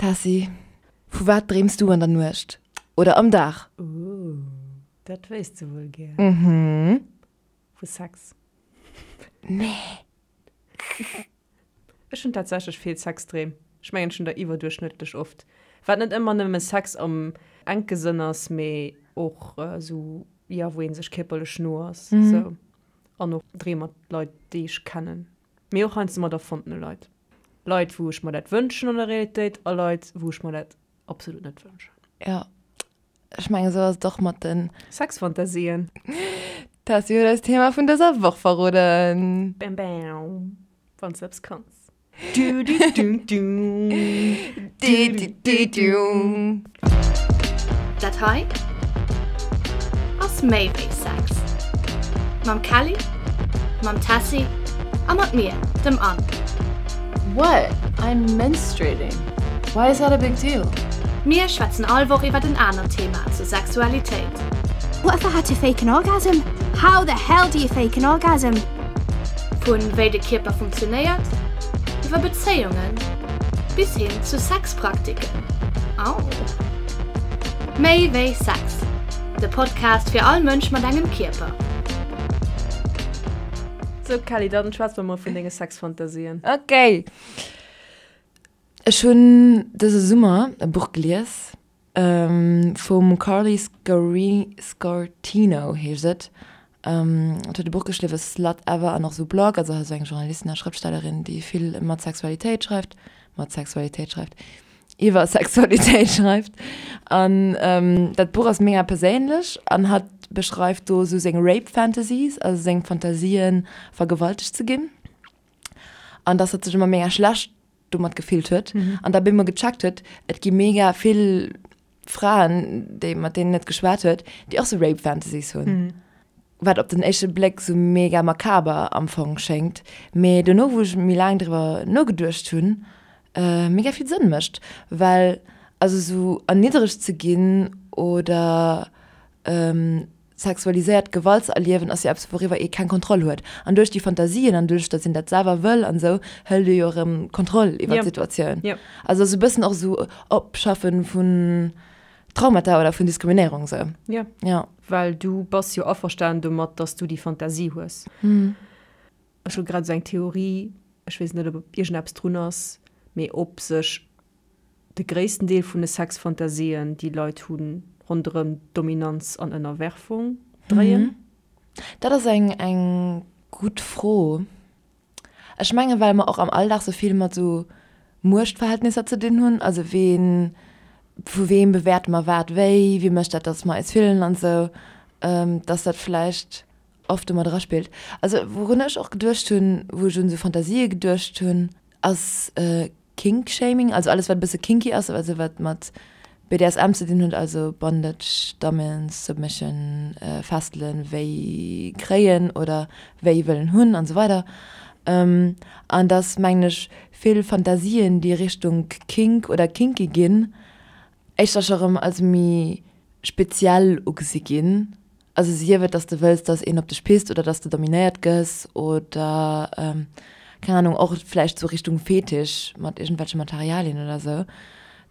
Tessy, vu wat dreems du an der Nuecht? Oder am Dag? Ooh, dat wéisst de wuel gär. Mhm. Vu Sex. Nee. Ech hunn tatsächlech vill Sexdreem. Ech mengen, ech hunn der iwwerduerchschnëttlech oft. Wat net ëmmer nëmme Sex am enke Sënn ass, mee och esou, jo, wou ee sech kierperlech no ass, esou. An och Dreem mat Leit, déi ech kennen, mee och heiansdo mat erfonntene Leit. Leit, wou ech mer dat wënschen an der Realitéit a Leit, wou ech mer dat absolut net wënschen. Jo, ech mengen, esou ass et och mat den. Sexfantasien. Tessy huet eis d'Thema vun dëser Woch verroden. Bam bam, wann s de eppes kanns. Dat hei ass méi wéi Sex. Mam Kelly, mam Tessy a mat mir, dem Anne. What? I'm menstruating. Why is that a big deal? Mir schwätzen all Woch iwwert en anert Thema zur Sexualitéit. What if I had to fake an orgasm? How the hell do you fake an orgasm? Vu wéi de Kierper funktionéiert, iwwer Bezéiungen bis hin zu Sexpraktiken. Au! Méi wéi Sex, de Podcast fir all Mënsch mat engem Kierper. Sou Kelly, dann schwätz mer mol vun denge Sexfantasien. Ok. Ech hunn dëse Summer e Buch gelies. Vum Carly Sciortino heescht et. Et huet e Buch geschriwwen, Slut Ever, an och esou Blog. Also ass eng Journalistin a Schrëftstellerin, déi vill mat Sexualitéit schreift, mat Sexualitéit schreift, iwwer Sexualitéit schreift. An dat Buch ass mega perséinlech an hatt beschreift do esou seng Rape Fantasies, also seng Fantasien, vergewaltegt ze ginn. An dass hatt sech ëmmer mega schlecht domat gefillt huet an da bemol gecheckt huet, et gi mega vill Fraen, déi mat deenen et geschwat huet, déi och sou Rape Fantasies hunn. Wat op den éischte Bléck sou mega makaber am Fong schéngt, mee dono wou ech méi laang driwwer nogeduecht hunn, mega vill Sënn mécht, well also sou erniddregt ze ginn oder Sexualiséiert Gewalt ze erliewen ass jo eppes wouriwwer ee keng Kontroll huet. An duerch déi Fantasien an duerch datt een dat selwer wëll an esou, hëlt ee jo erëm Kontroll iwwer d'Situatioun. Also ass e bëssen och esou Opschaffen vun Traumata oder vun Diskriminéierung esou. Jo. Jo. Well du bass jo averstanen domat, datt s du déi Fantasie hues. Ech hu grad esou eng Theorie, ech weess net ob iergendeppes drun ass, mee ob sech De gréissten Deel vun de Sexfantasien, déi Leit hunn, ronderëm Dominanz an Ënnerwerfung dréien? Dat ass eng eng gutt Fro. Ech mengen, well mer och am Alldag sou vill mat sou Muechtverhältnisser ze dinn hunn, also ween, vu weem bewäerte mer wat wéi, wie mécht dat, datt mer eis fillen an esou, dass dat vläicht oft domat eraspillt. Also wourun ech och geduecht hunn, wou ech un esou Fantasië geduecht hunn, ass Kink-Shaming, also alles wat e bësse kinky ass, also wat mat BDSM ze dinn huet, also Bondage, Dominance, Submission, Fesselen, wéi kréien oder wéi wëllen hunn an esou weider. An dass, mengen ech, vill Fantasien, déi Richtung Kink oder kinky ginn, éischter scho rëm als méi speziell ugesi ginn. Also sief et, dass de wëlls, dass een op dech pisst oder dass de dominéiert gëss oder keng Ahnung, och vläicht sou Richtung Fetisch mat iergendwelche Materialien oder sou,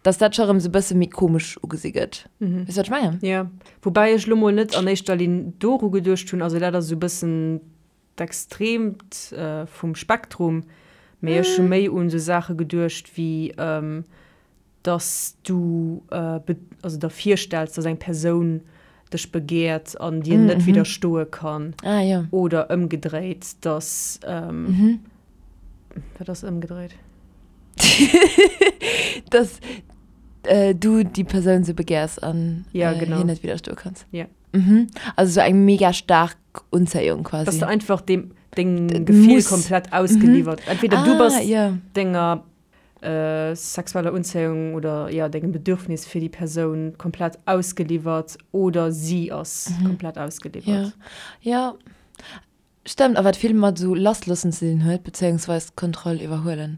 dass dat scho rëm sou bësse méi komesch ugesi gëtt. Weess de, wat ech mengen? Jo, woubäi ech lo mol net an éischter Linn doru geduecht hunn. Also dat ass esou bëssen d'Extreemt vum Spektrum, mee ech hu méi un esou Saache geduecht wéi dass du also der virstells, dass eng Persoun dech begehrt an dir net widderstoe kann. Ah, ja. Oder ëmgedréit, dass wat ass ëmgedréit? Dass du déi Persoun sou begehrs an ja, genau. hir net widderstoe kanns. Ja. Mhm. Also sou eng mega staark Unzéiung quasi. Dass du einfach dem deng Gefill komplett ausgeliwwert. Entweder du bass denger sexueller Unzéiung oder jo dengem Bedürfnis fir déi Persoun komplett ausgeliwwert oder si ass komplett ausgeliwwert. Jo, jo, stëmmt. A wat vill mat esou lassloossen ze dinn huet, bezéiungsweis d'Kontroll iwwerhuelen.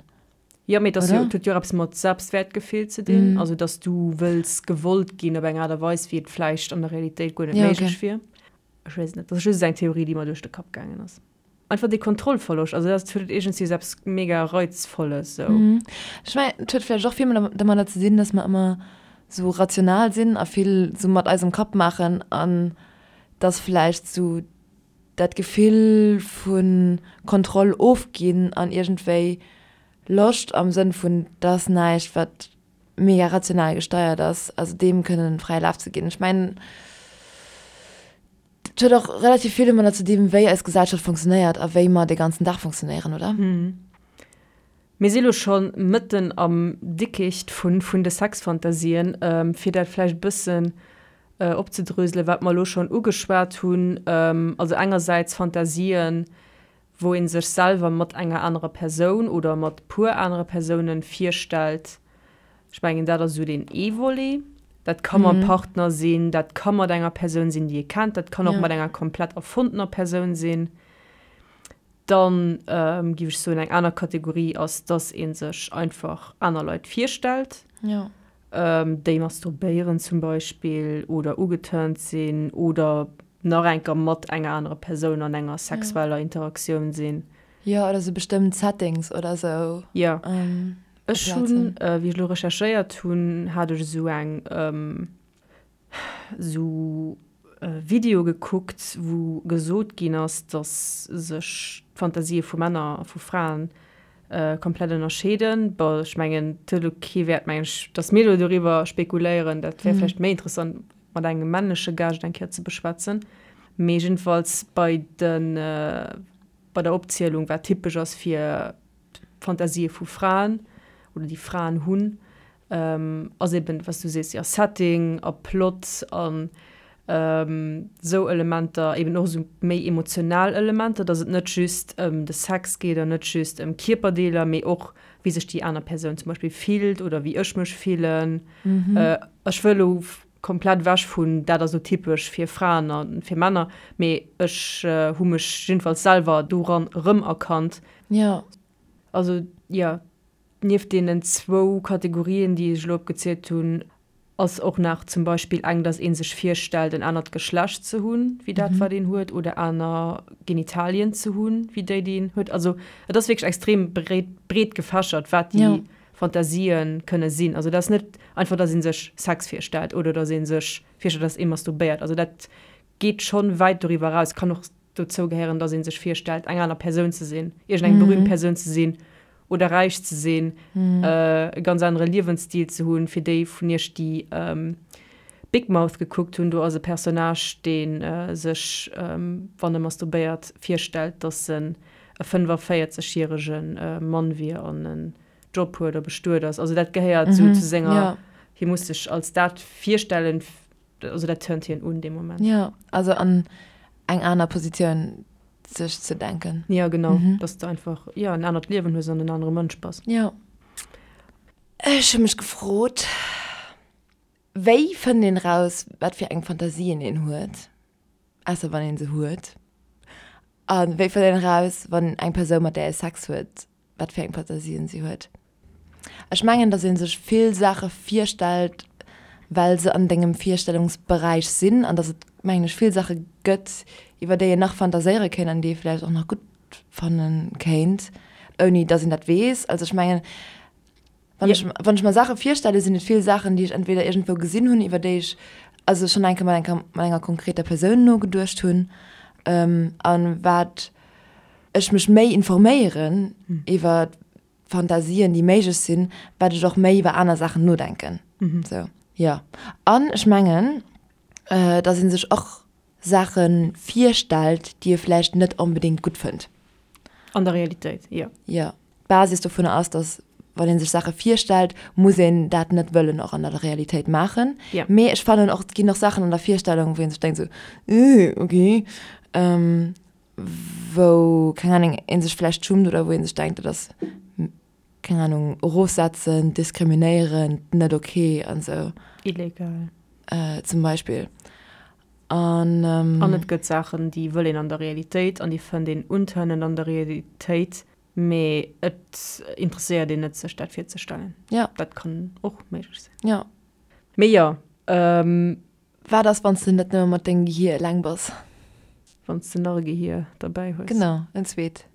Jo, mee et ass jo, et huet jo och eppes mat Selbstwäertgefill ze dinn, also dass du wëlls gewollt ginn op eng Aart a Weis, wéi et vläicht an der Realitéit guer net méiglech wier. Ech weess et net, dat ass just eng Theorie, déi mer duerch de Kapp gaangen ass. Einfach dee Kontrollverloscht, also dat huet iergendwéi esou eppes mega Reizvolles esou. Ech mengen, et huet vläicht och vill domadder ze dinn, dass mer ëmmer esou rational sinn a vill esou mat eisem Kapp maachen an dass vläicht esou dat Gefill vu Kontroll ofginn an iergendwéi Loscht am Sënn vun, dat ass näischt wat mega rational gesteiert ass, also deem kënnen fräie Laf ze ginn. Ech mengen, Et huet och relativ vill domadder ze dinn, wéi eis Gesellschaft funktionéiert a wéi mer de ganzen Dag funktionéieren, oder? Mir si lo scho mëtten am Dickicht vun de Sexfantasien. Fir dat vläicht e bëssen opzedröselen, wat mer elo schonn ugeschwat hunn, also engersäits Fantasien, wou ee sech selwer mat enger anerer Persoun oder mat puer anere Persounen virstellt. Ech mengen, dat ass esou deen ee Volet. Dat ka mam Partner sinn, dat ka mat enger Persoun sinn, déi ee kennt, dat kann och mat enger komplett erfonnener Persoun sinn. Dann géif ech soen, eng aner Kategorie ass, dass ee sech einfach aner Leit virstellt. Déi masturbéieren zum Beispill oder ugeturnt sinn oder nach enker mat enger anerer Persoun an enger sexueller Interaktioun sinn. Jo, oder sou bestëmmt Settings oder sou. Jo. Ech hunn, wéi ech elo recherchéiert hunn, hat ech esou eng, esou Video gekuckt, wou gesot ginn ass, dass sech d'Fantasië vu Männer a vu Fraen komplett ënnerscheeden. Bon, ech mengen, et huet elo kee Wäert, mengen ech, dass mir elo doriwwer spekuléieren. Dat wär vläicht méi interessant mat engem männleche Gaascht eng Kéier ze beschwätzen. Mee jiddefalls bei de, bei der Opzielung, wat typesch ass fir d'Fantasië vu Fraen oder déi Fraen hunn, ass eben, wat s du sees, jo, Setting a Plot an esou Elementer, eben och esou méi emotional Elementer, dass et net just ëm de Sex geet an net just ëm Kierperdeeler, mee och wéi sech déi aner Persoun zum Beispill fillt oder wéi ech mech fillen. Ech wëll elo komplett ewech vun dat ass elo typesch fir Fraen a fir Männer, mee ech hu mech jiddefalls selwer doran erëmerkannt. Jo. Also jo, nieft deenen zwou Kategorien, déi ech elo opgezielt hunn, ass och nach zum Beispill eng, datt ee sech virstellt, en anert Geschlecht ze hunn, wéi dat, wat een huet, oder aner Genitalien ze hunn, wéi déi, déi een huet. Also et ass wierklech extrem breet, breet gefächert, wat déi Fantasië kënne sinn. Also et ass net einfach, datt ee sech Sex virstellt oder datt ee sech virstellt, datt ee masturbéiert. Also dat geet schonn wäit doriwwer eraus, kann och dozou gehéieren, dass ee sech virstellt, eng aner Persoun ze sinn, iergendeng berühmt Persoun ze sinn oder räich ze sinn, e ganz anere Liewensstil ze hunn. Fir déi vun iech, déi Big Mouth gekuckt hunn, do ass e Personnage, dee sech, wann e masturbéiert, virstellt, dass en e 45 järege Mann wier an en Job huet a bestuet ass. Also dat gehéiert esou zu senger, hie muss sech als dat virstellen, Also dat turnt hien un dee Moment. Jo, also an eng aner Positioun sech ze denken. Jo, genau, dass de einfach, jo, en anert Liewen hues an en anere Mënsch bass. Jo. Ech hu mech gefrot, wéi fënnt een eraus, wat fir eng Fantasien een huet, ausser wann een se huet? A wéi fënnt een eraus, wann eng Persoun, mat där ee Sex huet, wat fir eng Fantasien si huet. Ech mengen, dass ee sech vill Saache virstellt, well se an dengem Virstellungsberäich sinn an dass et, mengen ech, vill Saache gëtt, iwwer déi een nach fantaséiere kéint an déi ee vläicht och nach gutt fanne kéint, ouni dass een dat weess. Also ech mengen, wann ech, wann ech mer Saache virstelle, sinn et vill Saachen, déi ech entweder iergendwou gesinn hunn, iwwer déi ech also schonn eng Kéier mat enker, mat enger konkreter Persoun nogeduecht hunn a wat ech mech méi informéieren iwwer Fantasien, déi méiglech sinn, wat ech och méi iwwer aner Saachen nodenken. Sou, jo. An ech mengen, dass ee sech och Saache virstellt, déi ee vläicht net onbedéngt gutt fënnt. An der Realitéit, jo. Jo. D'Basis dovunner ass, dass wann ee sech Saache virstellt, muss een dat net wëllen och an der Realitéit maachen. Jo. Mee ech fannen och, et ginn och Saachen an der Virstellung, wou ee sech denkt sou, Äh, okay. Wou, keng Ahnung, ee sech vläicht schummt oder wou ee sech denkt, dat ass, keng Ahnung, erofsetzend, diskriminéierend, net ok an esou. Illegal. Zum Beispill. An. An et gëtt Saachen, déi wëll een an der Realitéit an déi fënnt een untörnend an der Realitéit, mee et interesséiert een net, sech dat virzestellen. Ja. Dat kann och méiglech sinn. Ja. Mee jo. Wat ass, wann s de net nëmme mat dengem Gehier eleng bass? Wann s de nach e Gehier derbäi hues. Genau, en zweet.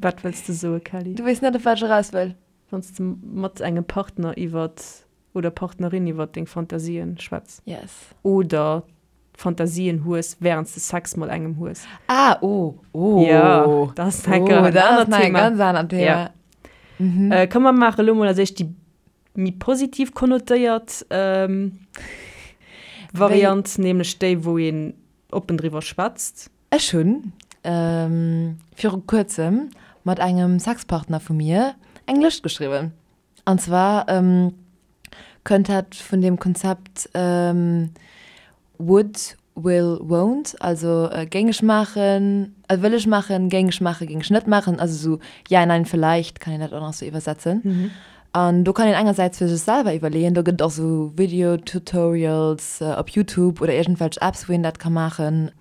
Wat wëlls de soe, Kelly? Du weess net, op wat ech eraus wëll. Wann s de mat engem Partner iwwer oder Partnerin iwwer deng Fantasien schwätz. Yes. Oder Fantasien hues, wärend s de Sex mat engem hues. Ah, oh, oh. Jo, dat ass nach oh, dat ass nach e ganz anert Thema. Ja. Mhm. Äh, komm, mer maache lo mol als éischt déi méi positiv konnotéiert ähm, Variant, nämlech déi, wou een oppen driwwer schwätzt. Ech hunn ähm, viru kuerzem mat engem Sexpartner vu mir eng Lëscht geschriwwen. An zwar kënnt dat vun deem Konzept would, will, won't, also géing ech maachen, wëll ech maachen, géing ech maachen, géing ech net maachen, also esou ja, nein, vielleicht kann een dat och nach esou iwwersetzen. An do kann een engersäits fir sech selwer iwwerleeën, do gëtt et och esou Video-Tutorials op Youtube oder iergendwelch Apps wou een dat ka maachen.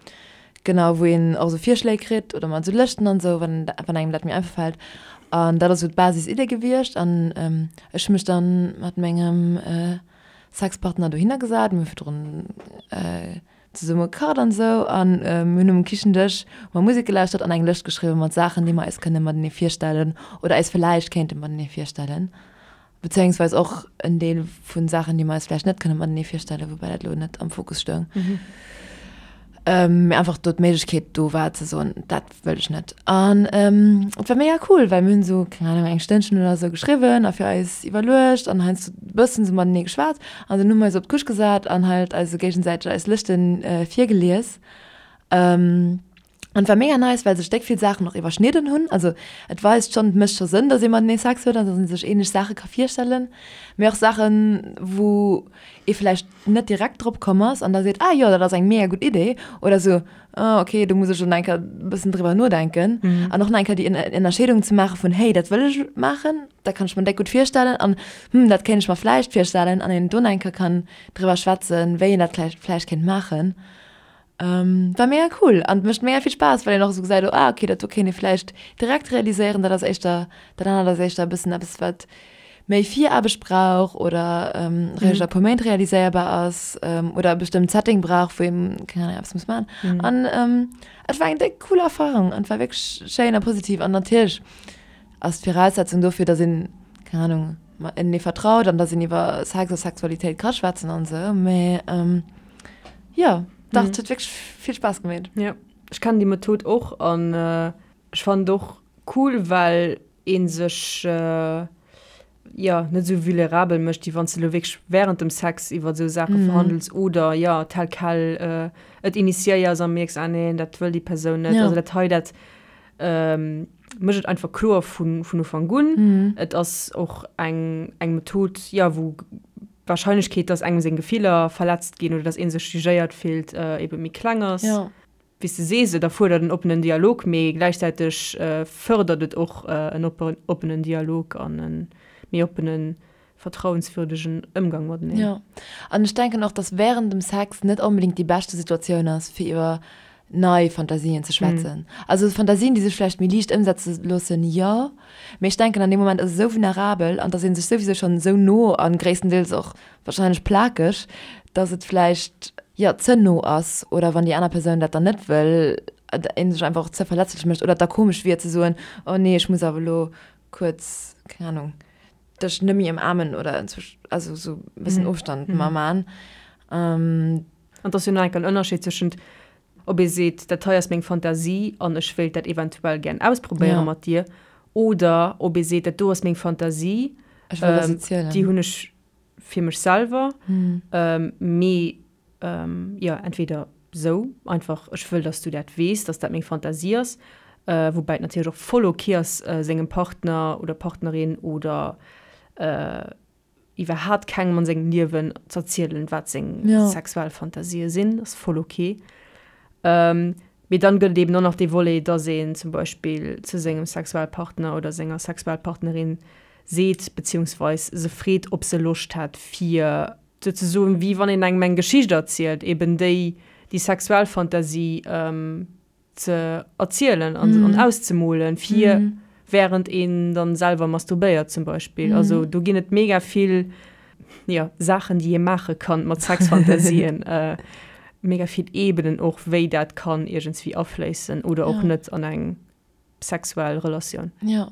Genau, wou een och esou Virschléi kritt oder mat esou Lëschten an esou, wann wann engem dat méi einfach fält. An dat ass esou d'Basis-Idee gewiescht. An ech hu mech dann mat mengem Sexpartner dohinner gesat, mir hu virdrun zesumme gekacht an esou an mir hunn um Kichendësch hu mer Musek gelauschtert an eng Lëscht geschriwwen mat Saachen, déi mer eis kënne matenee virstellen oder eis villäicht kéinte matenee virstellen. Bezéiungsweis och en Deel vu Saachen, déi mer eis vläicht net kënne matenee virstellen, woubäi dat elo net am Fokus stoung. Mee einfach do d'Méiglechkeet do war ze soen, dat wëll ech net. An et war mega cool, well mir hunn esou, keng Ahnung, eng Stënnchen oder esou geschriwwen a fir eis iwwerluecht an heiansdo e bëssen esou matenee geschwat. An dunn hu mer eis op d'Couche gesat an halt eis esou géigesäiteg eis Lëschte virgelies. An et war mega nice, well sech déck vill Saachen och iwwerschnidden hunn. Also et weist schonn, et mécht scho Sënn, dass ee matenee Sex huet an dass ee sech ähnlech Saache ka virstellen. Mee och Saachen, wou ee vläicht net direkt drop komm ass an da seet, ah jo, dat ass eng mega gutt Idee. Oder sou, ah okay, do muss ech elo nach eng Kéier e bëssen driwwer nodenken. An och nach eng Kéier déi Ënnerscheedung ze maache vun, hey, dat wëll ech maachen, dat kann ech mer déck gutt virstellen an hm, dat kéint ech mer vläicht virstellen. An een do nach eng Kéier kann driwwer schwätzen, wéi een dat vläicht kéint maachen. War mega cool an mécht mega vill Spaass, well een och esou gesäit, oh ah okay, dat do kéint ee vläicht direkt realiséieren, dat ass éischter, dat anert ass éischter e bëssen eppes, wat méi Viraarbecht brauch oder réischt a puer Méint realiséierbar ass oder e bestëmmt Setting brauch, wou een, keng Ahnung, eppes muss maachen. An et war eng déck cool Erfarung an et war wierklech schéin a positiv an natierlech ass d'Viraussetzung dofir, datt een, keng Ahnung, matenee vertraut an datt een iwwer Sex a Sexualitéit ka schwätzen an esou, mä Jo, dach, et huet wierklech vill Spaass gemeet. Jo, ech kennen déi Method och an ech fannen et och cool, well ee sech jo net esou vulnerabel mécht, wéi wann s de elo wierklech wärend dem Sex iwwer esou Saache verhandels oder jo tel quel et initiéiers a mierks, ah neen, dat wëll déi Persoun net. Also dat hei, dat mécht et einfach kloer vun Ufank un. Et ass och eng Method, jo, wou d'Warscheinlechkeet, dass engem seng Gefiller verletzt ginn oder dass ee sech jugéiert fillt, ebe méi kleng ass. Ja. Wéi s de sees, et erfuerdert en oppenen Dialog, mee gläichzäiteg fërdert et och en oppenen Dialog an e méi oppenen, vertrauenswürdegen Ëmgang mateneen. Jo. An ech denken och, dass wärend dem Sex net onbedéngt déi beschte Situatioun ass, fir iwwer nei Fantasien ze schwätzen. Also Fantasien, déi sech vläicht méi liicht ëmsetze loossen, jo. Mee ech denken, an deem Moment ass et esou vulnerabel an et ass ee sech souwisou schonn esou no a gréisstendeels och warscheinlech plakeg, dass et vläicht, jo, ze no ass oder wann déi aner Persoun dat dann net wëll, ee sech einfach och ze verletzlech mécht oder et da komesch wier ze soen, oh nee, ech muss awer elo kuerz, keng Ahnung, dech net méi ëmaarmen oder also esou e bëssen Ofstand mer man. An et ass jo nach enk en Ënnerscheed zwëschent, ob ee seet, dat hei ass meng Fantasie an ech wéilt dat eventuell gären ausprobéiere mat dir, oder ob ee seet, dat do ass meng Fantasie, déi hunn ech fir mech selwer, mee jo, entweder sou einfach, ech wëll, dass du dat weess, dass dat meng Fantasie ass, woubäi et natierlech och voll ok ass, sengem Partner oder Partnerin oder iwwerhaat kengem an sengem Liewen z'erzielen, wat seng sexuell Fantasië sinn, ass voll ok. Mee dann gëtt et eben och nach dee Volet, dass een zum Beispill zu sengem Sexualpartner oder senger Sexualpartnerin seet, beziehungsweis se freet, ob se Loscht hätt fir souzesoen, wéi wann een engem eng Geschicht erzielt, eben déi déi sexuell Fantasie ze erzielen an auszemolen, fir während een dann selwer masturbéiert zum Beispill. Also do ginn et mega vill, jo, Saachen, déi ee maache kann mat Sexfantasien. mega vill Ebenen och, wéi dat kann iergendswéi afléissen oder och net an eng sexuell Relatioun. Jo.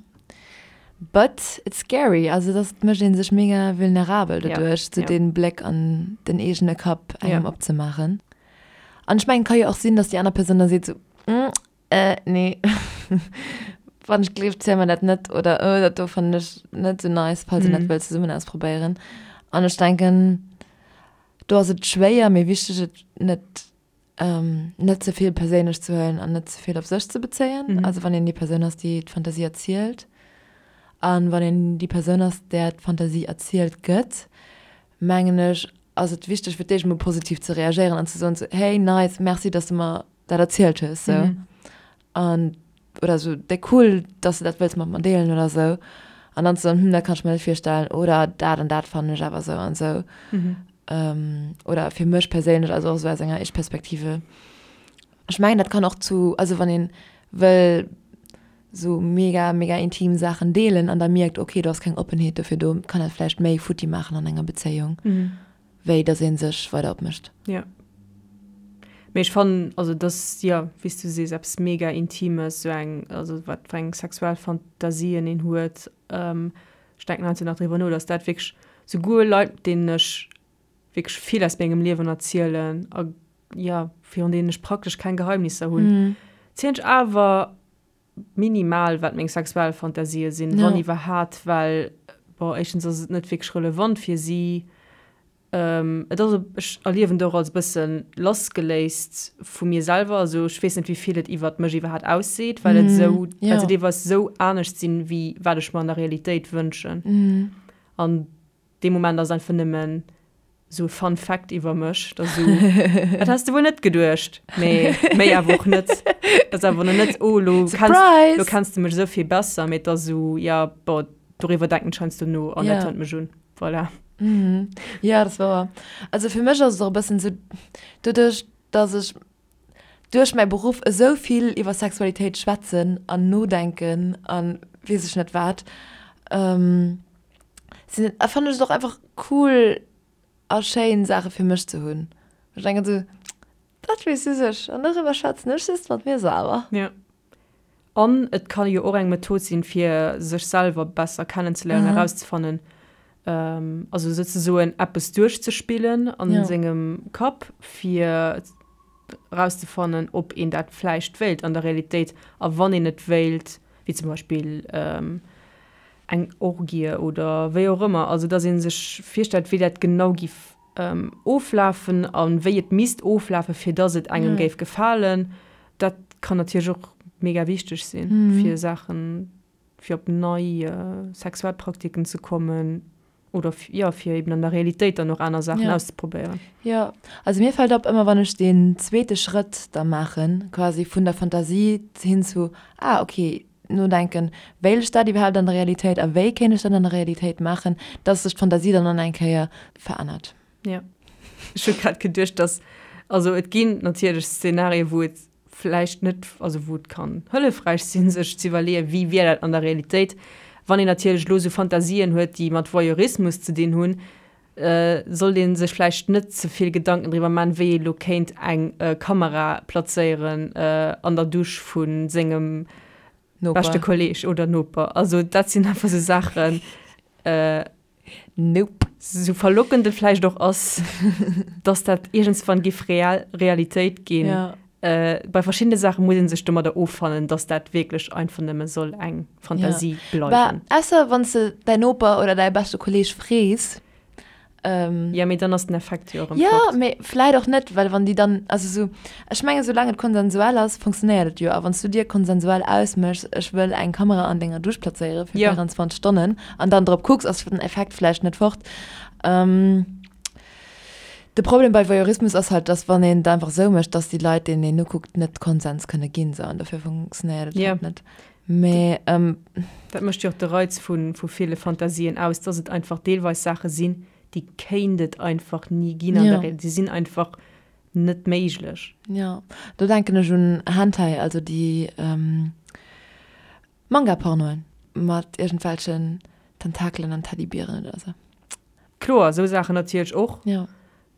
But it's scary, also dass et mécht ee sech mega vulnerabel doduerch, sou dee Bléck an den eegene Kapp engem opzemaachen. An ech mengen, et ka jo och sinn, dass déi aner Persoun da seet sou, Äh, nee. Wann ech gleeft, ziel mer dat net. Oder oh, dat do fannen ech net sou nice, falls een dat wëllt zesummen ausprobéieren. An ech denken, do ass et schwéier, mee wichteg, et net, ähm, net ze vill perséinlech ze huelen an net ze vill op sech ze bezéien. Also wann een déi Persoun ass, déi d'Fantasie erzielt. An wann een déi Persoun ass, där d'Fantasie erzielt gëtt, mengen ech, ass et wichteg, fir d'éischt emol positiv ze reagéieren an ze soen, sou, hey, nice, merci, dass de mer dat erzielt hues sou mhm. an oder so déi cool dass du dat wëlls mat mer deelen oder sou an dann so hm, dat kann ich mir net virstellen oder dat an dat fannen ech awer sou an sou mhm. ähm, oder fir mech perséinlech also och sou aus enger Ich-Perspektive ech mengen dat kann och zu also wann een wëll sou mega mega intim Saachen deelen an da mierkt okay do ass keng Oppenheet dofir do kann dat vläicht méi futti maachen an enger Bezéiung. Mhm. wéi dass ee sech weider opmécht. Jo. Mee ech fannen, also et ass, jo, wéi s du sees, eppes mega Intimes, esou eng, also wat fir eng sexuell Fantasien een huet. Ech denken heiansdo nach driwwer no, dass dat wierklech souguer Leit, deenen ech wierklech vill aus mengem Liewen erzielen a, jo, virun deenen ech praktesch keng Geheimnisser hunn, zielen ech awer minimal wat meng sexuell Fantasië sinn, wann iwwerhaat, well bon, éischtens ass et net wierklech relevant fir si, et ass, ech erliewen et och als e bësse lassgeléist vu mir selwer, also ech weess net wéi vill et iwwert mech iwwerhaat ausseet, well et esou, well se deelweis esou anescht sinn, wéi wat ech mer an der Realitéit wënschen an Dee Moment ass einfach nëmmen esou e Fun Fact iwwer mech, dass esou, dat häss de wuel net geduecht, mee méi awer och net. Dat ass awer net, oh elo kenns, elo kenns de mech esou vill besser, mee et ass esou, ja bon, doriwwer denken ech heiansdo no an dat hëlt mech un. Voilà. Jo, dat ass wouer. Also fir mech ass et och e bëssen esou, doduerch dass ech duerch mäi Beruff esou vill iwwer Sexualitéit schwätzen an nodenken a weess ech net wat, sinn et, fannen ech et och einfach cool a schéin Saache fir mech ze hunn. Ech denken esou, dat weess just ech an doriwwer schwätzen ech just mat mir selwer. Jo. An et ka jo och eng Method sinn, fir sech selwer besser kennenzeléieren, erauszefannen, also souzesoen eppes duerchzespillen a sengem Kapp, fir erauszefannen, ob een dat vläicht wéilt an der Realitéit a wann een et wéilt, wéi zum Beispill eng Orgie oder wéi och ëmmer, also datt ee sech virstellt, wéi dat genau giff oflafen a wéi et misst oflafen, fir datt et engem géif gefalen. Dat kann natierlech och mega wichteg sinn, fir Saachen, fir op nei sexuell Praktiken ze kommen oder jo, fir eben an der Realitéit dann och aner Saachen auszeprobéieren. Jo, also mir fält op, ëmmer wann ech deen zweete Schrëtt da maachen, quasi vun der Fantasie hin zu, ah okay, nodenken, wéilt ech dat iwwerhaapt an der Realitéit a wéi kéint ech dat an der Realitéit maachen, dass sech d'Fantasie dann an eng Kéier verännert. Jo. Ech hu grad geduecht, dass, also et ginn natierlech Szenarien, wou et vläicht net, also wou et kann hëllefräich sinn, sech ze iwwerleeën, wéi wier dat an der Realitéit. Wann een natierlech elo esou Fantasien huet, déi mat Voyeurismus ze dinn hunn, sollt ee sech vläicht net ze vill Gedanken driwwer man, wéi ee lo kéint eng Kamera plazéieren an der Dusch vu sengem beschte Kolleeg oder Noper. Also dat sinn einfach sou Saachen, Nope. Sou verlockend et vläicht och ass, dass dat iergendswann giff real Realitéit ginn. Bei verschiddene Saache muss ee sech domadder offannen, dass dat wierklech einfach nëmme soll eng Fantasie bleiwen. Bah, ausser wann s de däin Noper oder däi beschte Kolleeg frees. Jo, mee dann ass den Effekt jo erëm fort. Jo, mee vläit och net, well wann déi dann, also sou, ech mengen, soulaang et konsensuell ass, funktionéiert et jo. A wann s du dir konsensuell ausméchs, ech wëll eng Kamera an denger Dusch plazéiere fir 24 Stonnen an dann drop kucks, ass den Effekt vläicht net fort. De Problem bei Voyeurismus ass halt, dass wann een et einfach esou mécht, dass déi Leit, deenen een nokuckt, net Konsens kënne ginn, sou, an dofir funktionéiert et halt net. Mee. Dat mécht jo och de Reiz vu ville Fantasien aus, dass et einfach deelweis Saache sinn, déi kéint et einfach ni ginn an der Realitéit. Déi sinn einfach net méiglech. Jo, do denken ech un Hentai, also déi Manga-Pornoen mat iergendwelchen Tentakelen an Teddybieren oder sou. Kloer, esou Saachen natierlech och. Jo.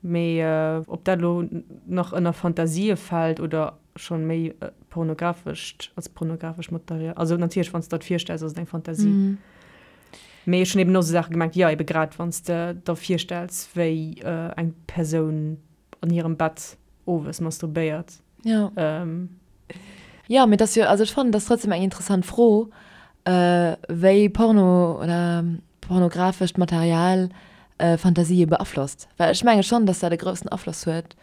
Mee ob dat elo nach ënner Fantasië fält oder schonn méi pornografescht, als pornografescht Material, also natierlech wann s de der et virstells ass et eng Fantasie. Mee ech hunn eben och esou Saache gemengt, jo ebe grad wann s de der virstells wéi eng Persoun an hirem Bett owes masturbéiert. Jo. Jo, mee et ass jo, also ech fannen, et ass trotzdem eng interessant Fro, wéi Porno oder pornografescht Material Fantasië beaflosst. Well ech menge schonn, dass dat e groussen Afloss huet,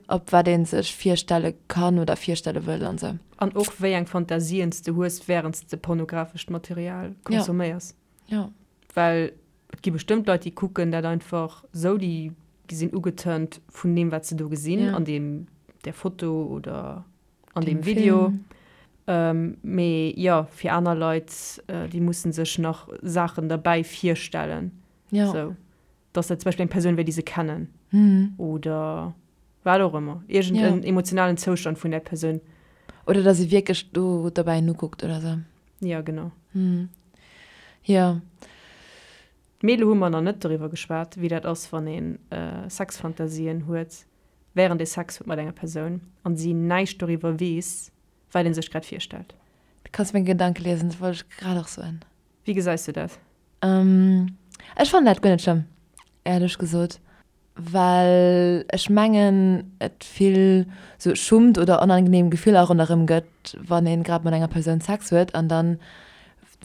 op wat ee sech virstelle kann oder virstelle wëll an esou. An och wéi eng Fantasien s de hues, wärend s de pornografescht Material consomméiers. Jo. Well et gi bestëmmt Leit, déi kucken dat einfach esou, déi sinn ugetörnt vun deem, wat se do gesinn an deem, där Foto oder an deem Video. Mee jo, fir aner Leit, déi musse sech nach Saachen derbäi virstellen. Jo. Sou, dass dat zum Beispill eng Persoun wär, déi se kennen. Oder wat och ëmmer. Iergend en emotionalen Zoustand vun där Persoun. Oder dass ee wierklech do derbäi nokuckt oder sou. Jo, genau. Jo. Mee elo hu mer nach net doriwwer geschwat, wéi dat ass, wann ee Sexfantasien huet, wärend ee Sex huet mat enger Persoun an si näischt doriwwer weess, wat ee sech grad virstellt. Du kanns meng Gedanke liesen, dat wollt ech grad och soen. Wéi gesäis du dat? Ech fannen dat guer net schlëmm, éierlech gesot, well ech mengen et vill sou Schummt oder onangenehm Gefiller ronderëm gëtt, wann een grad mat enger Persoun Sex huet an dann,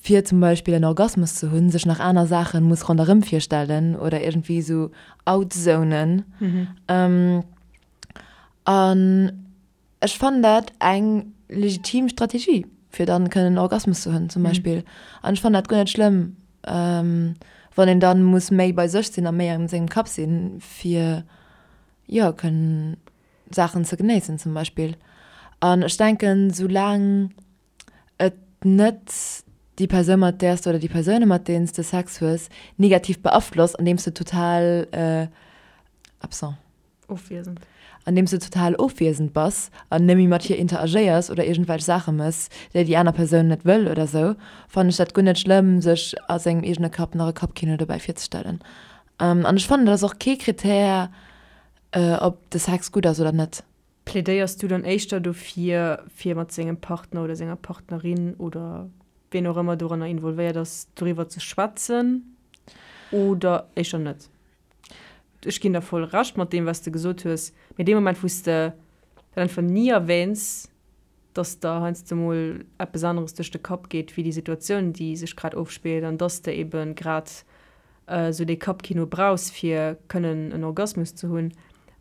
fir zum Beispill en Orgasmus ze hunn, sech nach aner Saachen muss ronderëm virstellen oder iergendwéi sou outzonen. An Ech fannen dat eng legitim Strategie, fir dann kënnen en Orgasmus ze hunn zum Beispill. An ech fannen dat guer net schlëmm, wann een dann muss méi bei sech sinn a méi an sengem Kapp sinn, fir jo kënnen Saachen ze genéissen zum Beispill. An ech denken, soulaang et net déi Persoun mat där s de oder déi Persoune mat deenen s de Sex hues negativ beaflosst, andeems de total absent. Ofwiesend. Andeems de total ofwiesend bass an net méi mat hir interagéiers oder iergendwelch Saache mëss, déi déi aner Persoun net wëll oder sou, fannen ech dat guer net schlëmm, sech a sengem eegene Kapp nach e Kappkino dobäi virzestellen. An ech fannen, dat ass och kee Krittär, ob de Sex gutt ass oder net. Plädéiers du dann éischter dofir, fir mat sengem Partner oder senger Partnerin oder wien och ëmmer doranner involvéiert ass, doriwwer ze schwätzen oder éischter net? Ech ginn der voll Recht mat deem, wat s de gesot hues, mee dee Moment, wou s de dat einfach ni erwähns, dass der heiansdo mol eppes aneres duerch de Kapp geet wéi déi Situatioun, déi sech grad ofspillt, an dass de ebe grad esou dee Kappkino brauchs, fir kënnen en Orgasmus ze hunn,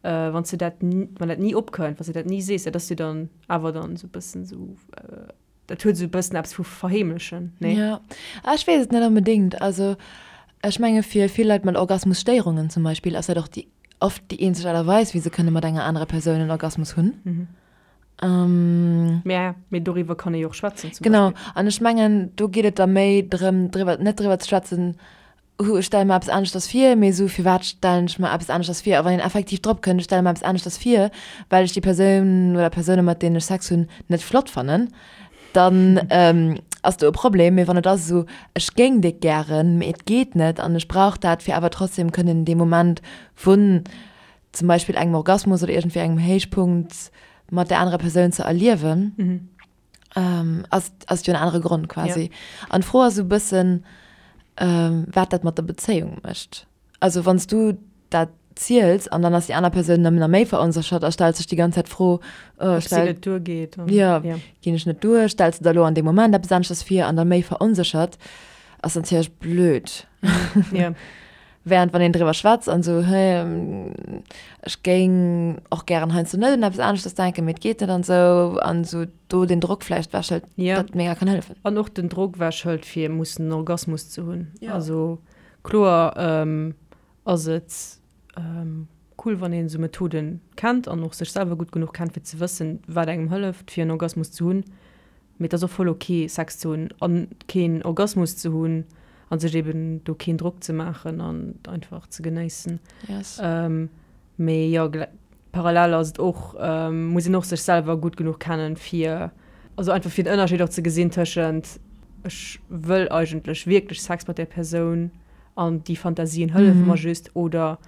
wann s de dat, wann dat ni opkënnt, wann s de dat ni sees, dat ass jo dann awer dann esou e bëssen esou, Dat huet esou e bëssen eppes vu verheemlechen, nee? Jo, ah ech weess et net onbedéngt. Also ech menge fir vill Leit mat Orgasmusstéierungen zum Beispill ass dat och déi oft déi eenzeg Aart a Weis wéi se kënne mat enger anerer Persoun en Orgasmus hunn. Mä mee doriwwer kann ee jo och schwätzen zum Beispill. Genau, an ech mengen do geet et da méi drëm driwwer net driwwer ze schwätzen, Hu, ech stelle mer eppes aneschters vir, mee esou, firwat stellen ech mer eppes aneschters vir? A wann een effektiv drop kënnt, ech stelle mer eppes aneschters vir, well ech déi Persoun oder Persoune mat deenen ech Sex hunn net flott fannen, dann ass do e Problem. Mee wann et ass esou, ech géing déck gären, mee et geet net an ech brauch dat, fir awer trotzdem kënnen dee Moment vun zum Beispill engem Orgasmus oder iergendwéi engem Héichpunkt mat där anerer Persoun ze erliewen, Ähm, ass, ass jo en anere Grond quasi. Ja. An d'Fro ass e bëssen, ähm, wat dat mat der Bezéiung mécht. Also wann s du dat ziels an dann ass déi aner Persoun nëmmen nach méi veronséchert a stellt sech déi ganz Zäit d'Fro, oh, Ob si net duergeet. An, ja, ja, ginn ech net duer, stells de der elo an deem Moment eppes aneschters vir an dann méi veronséchert, ass natierlech blöd. Ja. Während wann een driwwer schwätzt an esou, hey, ech géing och gären heiansdo net un eppes aneschters denken, mee et geet net an esou, an esou do den Drock vläicht wechhëlt, Ja. dat mega kann hëllefen. An och den Drock wechhëlt fir mussen en Orgasmus ze hunn. Ja. Also kloer ass et cool wann een esou Methoden kennt an och sech selwer gutt genuch kennt fir ze wëssen wat engem hëlleft fir en Orgasmus ze hunn. Mee et ass och voll ok Sex ze hunn an keen Orgasmus ze hunn an sech eben do keen Drock ze maachen an einfach ze genéissen. Yes. Mee jo, parallel ass et och, muss een och sech selwer gutt genuch kennen fir, also einfach fir den Ënnerscheed och ze gesinn tëschent ech wëll eigentlech wierklech Sex mat där Persoun an déi Fantasien hëllefe mer just oder.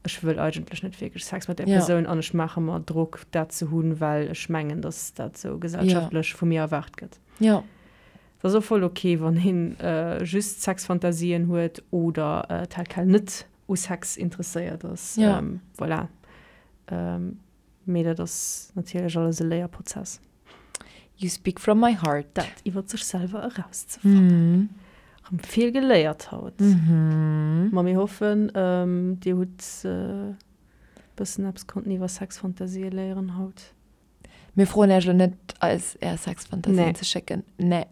Ech wëll eigentlech net wierklech Sex mat där Persoun an ech maache mer Drock, dat ze hunn, well ech mengen, dass dat esou gesellschaftlech vu mir erwaart gëtt. Et ass och voll ok, wann ee just Sexfantasien huet oder tel quel net u Sex interesséiert ass. Voilà. Mee dat ass natierlech alles e Léierprozess. You speak from my heart. Dat iwwer sech selwer erauszefannen. Rëm vill geléiert haut. Ma mir hoffen, dir hutt e bëssen eppes konnten iwwer Sexfantasië léieren haut. Mir froen iech elo net, eis är Sexfantasien ze schécken. Nee.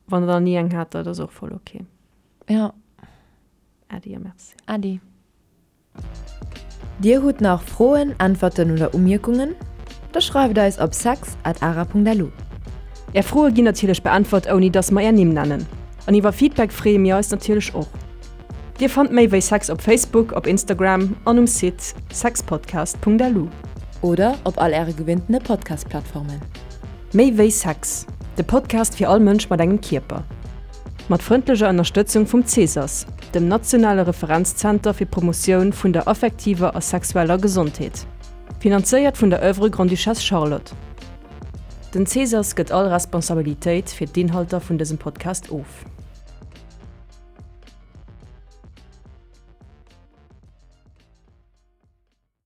Wann der ni eng hat, dat ass och voll ok. Jo. Äddi a Merci. Äddi. Dir hutt nach Froen, Äntwerten oder Umierkungen? Da schreift eis op sex at ara.lu. Är Froe ginn natierlech beäntwert ouni dass mer är Nimm nennen. An iwwer Feedback freeë mir eis natierlech och. Dir fannt méi wéi Sex op Facebook, op Instagram an um Site sexpodcast.lu. Oder op all äre gewinntene Podcast-Plattformen. Méi wéi Sex, de Podcast fir all Mënsch mat engem Kierper. Mat frëndlecher Ënnerstëtzung vum CESAS, dem nationale Referenzzenter fir d'Promotioun vun der affektiver a sexueller Gesondheet. Finanzéiert vun der Oeuvre Grande-Duchesse Charlotte. Den CESAS gëtt all Responsabilitéit fir d'Inhalter vun dësem Podcast of.